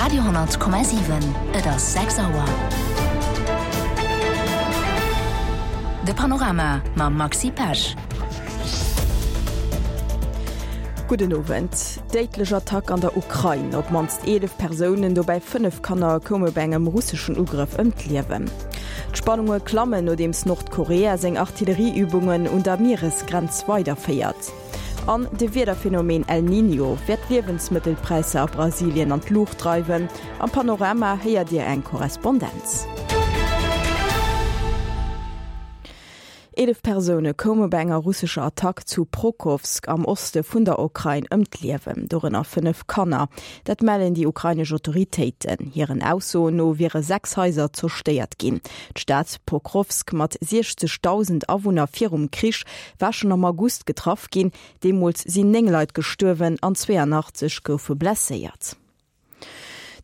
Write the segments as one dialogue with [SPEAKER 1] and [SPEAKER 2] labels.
[SPEAKER 1] Radio,7 Et ass 6 Auer. De Panorama mam Maxi Pesch.
[SPEAKER 2] Gudden Owend. Déidlech Attack an der Ukrain, Op d'mannst 11 Persounen, dobäi 5 Kanner, koume bei engem russeschen Ugrëff ëm d'Liewen. D'Spannunge klammen, nodeems Nordkorea seng Artillerieübungen un der Mieresgrenz weiderféiert. An de Wiederphenomen El Niño wäert d'Liewensmëttelpräisser a Brasilien an d'Luucht dreiwen. Am Panorama héiert Dir eng Korrespondenz. 11 Persoune koume bei enger russescher Attack zu Prokowsk am Oste vun der Ukrain ëm d'Liewen, dorënner 5 Kanner. Dat mellen déi ukrainesch Autoritéiten. Hiren Aussoen no wiere 6 Haiser zerstéiert ginn. D'Stad Pokrowsk mat 60.000 Awunner virum Krich war schonn am August getraff ginn. Deemools sinn 9 Leit gestuerwen an 82 goufe blesséiert.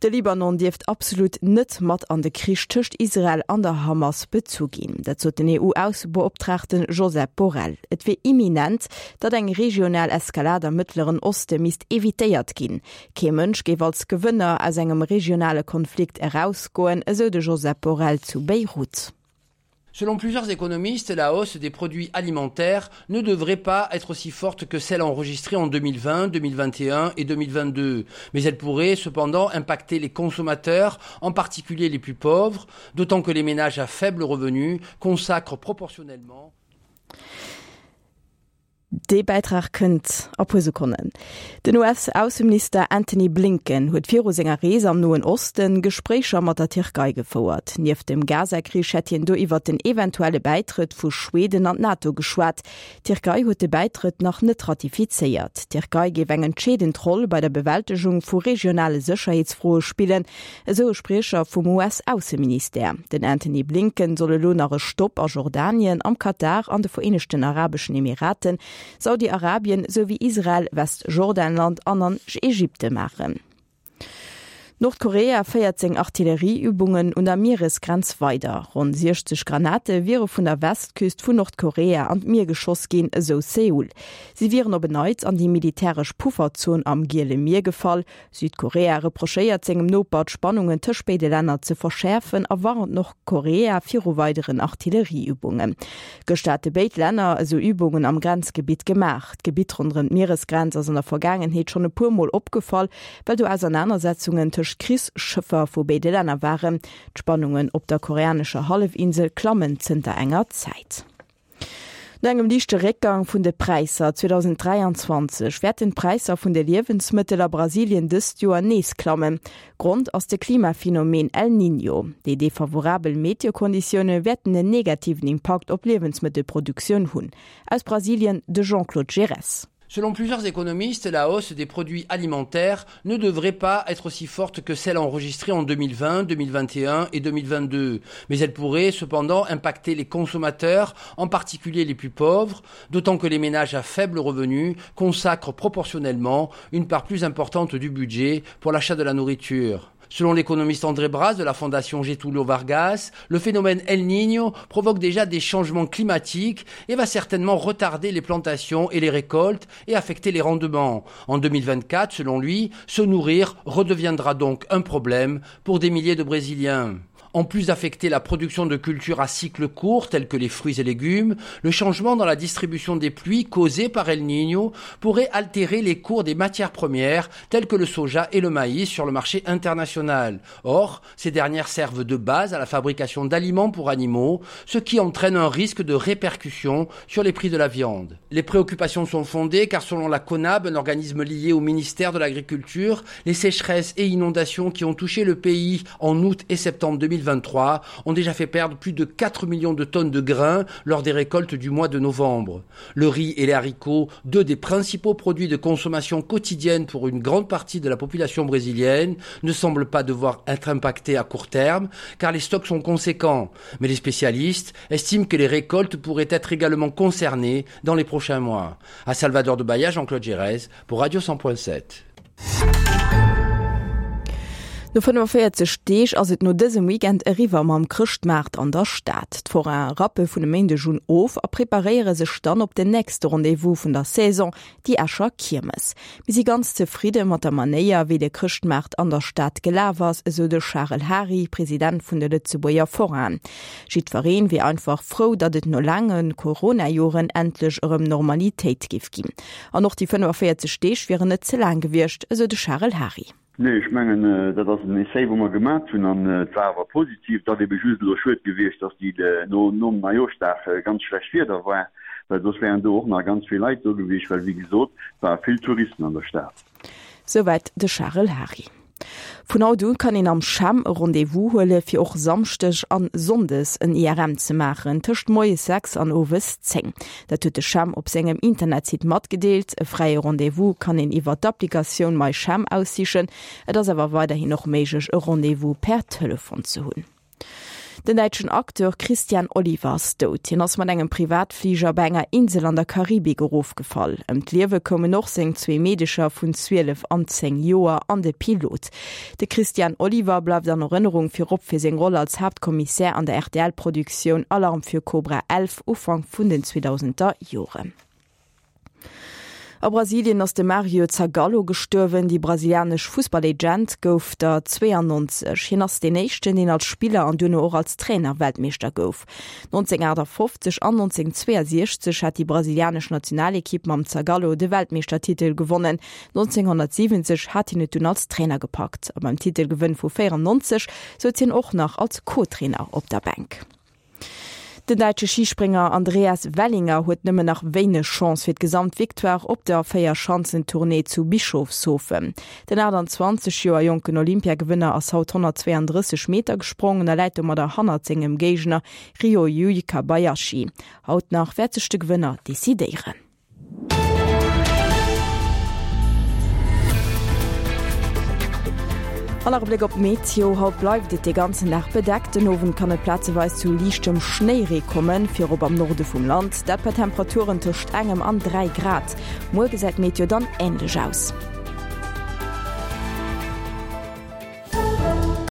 [SPEAKER 2] De Libanon dierft absolut net mat an de Krich tëscht Israel an der Hamas bezu ginn. Dat sot den EU-Aussebeoptraagte Josep Borrell. Et wier imminent, datt eng regional Eskalad am Mëttleren Oste misst evitéiert ginn. Kee Mënsch géif als Gewënner aus engem regionale Konflikt erausgoen, esou de Josep Borrell zu Beirut.
[SPEAKER 3] Selon plusieurs économistes, la hausse des produits alimentaires ne devrait pas être aussi forte que celle enregistrée en 2020, 2021 et 2022. Mais elle pourrait cependant impacter les consommateurs, en particulier les plus pauvres, d'autant que les ménages à faible revenu consacrent proportionnellement
[SPEAKER 2] Dee Bäitrag kënnt a puer Sekonnen. Den US-Ausseminister Antony Blinken huet viru senger Rees am Noen Osten Gespréicher mat der Tierkei gefouert. Nieft dem Gaza-Krich hätt hien do iwwert den eventuelle Bäitrëtt vu Schweden an d'NATO geschwat. D'Tierkei huet de Bäitrëtt nach net ratifizéiert. D'Tierkei géif eng entscheedend Roll bei der Bewältegung vu regionale Sécherheetsfroe spillen, Esou e Spriecher vum US-Ausseministère. Den Antony Blinken soll elo nach e Stopp a Jordanien, am Katar, an de Vereenegten Arabeschen Emiraten, Saudi-Arabien souwéi Israel, Westjordanland an an Ägypte maachen. Nordkorea féiert seng Artillerieübungen un der Mieresgrenz weider. Ronn 60 Granate wiere vun der Westküst vun Nordkorea an d'Mier geschoss ginn, esou Seoul. Si wieren op en Neits an déi militäresch Pufferzon am Giele Mier gefall. Südkorea reprochéiert sengem Noper, d'Spannungen tëscht béide Länner ze verschäerfen a warnt Nordkorea viru weideren Artillerieübungen. Gëschter hate béid Länner esou Übungen am Grenzgebitt gemaach. D'Gebitt ronderëm d'Mieresgrenz ass an der Vergaangenheet schonn e puer Mol opgefall, well do Ausernanersetzungen tëscht Krichsschëffer vu béide Länner waren. D'Spannungen op der koreanescher Hallefinsel klammen zënter enger Zäit. No engem liichte Réckgang vun de Präisser 2023 wäerten d'Präisser vun de Liewensmëttel a Brasilien dëst Joer nees klammen. Grond ass de Klimaphenomen El Niño. Déi defavorabel Meteokonditioune wäerten en negativen Impakt op d'Liewensmëttelproduktioun hunn. Aus Brasilien de Jean-Claude Giresse.
[SPEAKER 3] Selon plusieurs économistes, la hausse des produits alimentaires ne devrait pas être aussi forte que celle enregistrée en 2020, 2021 et 2022. Mais elle pourrait cependant impacter les consommateurs, en particulier les plus pauvres, d'autant que les ménages à faible revenu consacrent proportionnellement une part plus importante du budget pour l'achat de la nourriture. Selon l'économiste André Bras de la fondation Getulio Vargas, le phénomène El Niño provoque déjà des changements climatiques et va certainement retarder les plantations et les récoltes et affecter les rendements. En 2024, selon lui, se nourrir redeviendra donc un problème pour des milliers de Brésiliens. En plus d'affecter la production de cultures à cycle court telles que les fruits et légumes, le changement dans la distribution des pluies causé par El Niño pourrait altérer les cours des matières premières telles que le soja et le maïs sur le marché international. Or, ces dernières servent de base à la fabrication d'aliments pour animaux, ce qui entraîne un risque de répercussion sur les prix de la viande. Les préoccupations sont fondées car selon la CONAB, un organisme lié au ministère de l'Agriculture, les sécheresses et inondations qui ont touché le pays en août et septembre 2023 ont déjà fait perdre plus de 4 millions de tonnes de grains lors des récoltes du mois de novembre. Le riz et les haricots, deux des principaux produits de consommation quotidienne pour une grande partie de la population brésilienne, ne semblent pas devoir être impactés à court terme car les stocks sont conséquents. Mais les spécialistes estiment que les récoltes pourraient être également concernées dans les prochains mois. À Salvador de Bahia, Jean-Claude Gérez pour Radio 100.7.
[SPEAKER 2] No 45 Deeg ass et no dësem Weekend eriwwer mam Chrëschtmaart an der Stad. D'Forainen rappe vun e Méindeg un of a preparéiere sech dann op den nächste Rendez-vous vun der Saison, déi Escher Kiermes. Mir si ganz zefridde mat der Manéier, wéi de Chrëschtmaart an der Stad gelaf ass, esou de Charel Hary, President vun de Lëtzebuerger Forainen. Jiddweree wier einfach frou, datt et no laange Corona-Joren endlech erëm Normalitéit géif ginn. An och déi 45 Deeg wieren net ze laang gewiescht, esou de Charel Hary.
[SPEAKER 4] Nee, ech mengen, dat ass en Essai, wou mer gemat hunn, an et war awer positiv. Et ass ebe just elo schued gewiescht, dass déi no nom Neijooschdag ganz schlecht Wieder war, well soss wären do och nach ganz vill Leit do gewiescht, well wéi gesot, et ware vill Touristen an der Stad.
[SPEAKER 2] Souwäit de Charel Hary. Vun haut u kann een am CHEM e Rendez-vous huele fir och Samschdeg an Sonndes en IRM ze maachen, tëscht moies 6 an owes 10. Dat huet de CHEM op sengem Internetsite matgedeelt. E fräie Rendez-vous kann een iwwer d'Applikatioun MyChem aussichen. Et ass awer weiderhin och méiglech e Rendez-vous per Telefon ze hunn. Den däitschen Acteur Christian Oliver ass dout. Hien ass mat engem Privatfliger bei enger Insel an der Karibik erofgefall. Ëm d'Liewe koumen och seng zwee Meedecher vun 12 an 10 Joer an de Pilot. De Christian Oliver bleift an Erënnerung virop fir seng Roll als Haaptkommissär an der RTL-Produktioun Alarm für Cobra 11 Ufank vun den 2000er Joren. A Brasilien ass de Mario Zagallo gestuerwen. Déi brasilianesch Fussballegend gouf der 92. Hien ass deen éischten, deen als Spiller an duerno och als Trainer Weltmeeschter gouf. 1958 an 1962 hat déi brasilianesch Nationalekipp mam Zagallo de Weltmeeschtertitel gewonnen. 1970 hat hien et dunn als Trainer gepackt a beim Titelgewënn vu 94 souz hien och nach als Co-Trainer op der Bänk. Den däitsche Schisprénger Andreas Wellinger huet nëmmen nach wéineg Chance fir d'Gesamtvictoire op der Véierschanzentournée zu Bischofshofen. Den 28 Joer jonken Olympiagewënner ass haut 132 Meter gesprongen a läit domadder hannert sengem Géigner Ryoyu Kobayashi. Haut nach wäert sech de Gewënner decidéieren. An nach e Bléck op d'Meteo, Haut bleift et de ganzen Dag bedeckt, den Owend kann et plazeweis zu liichtem Schnéiree kommen, virop am Norde vum Land, dat bei Temperaturen tëscht engem an 3 Grad. Muer gesäit d'Meteo dann änlech aus.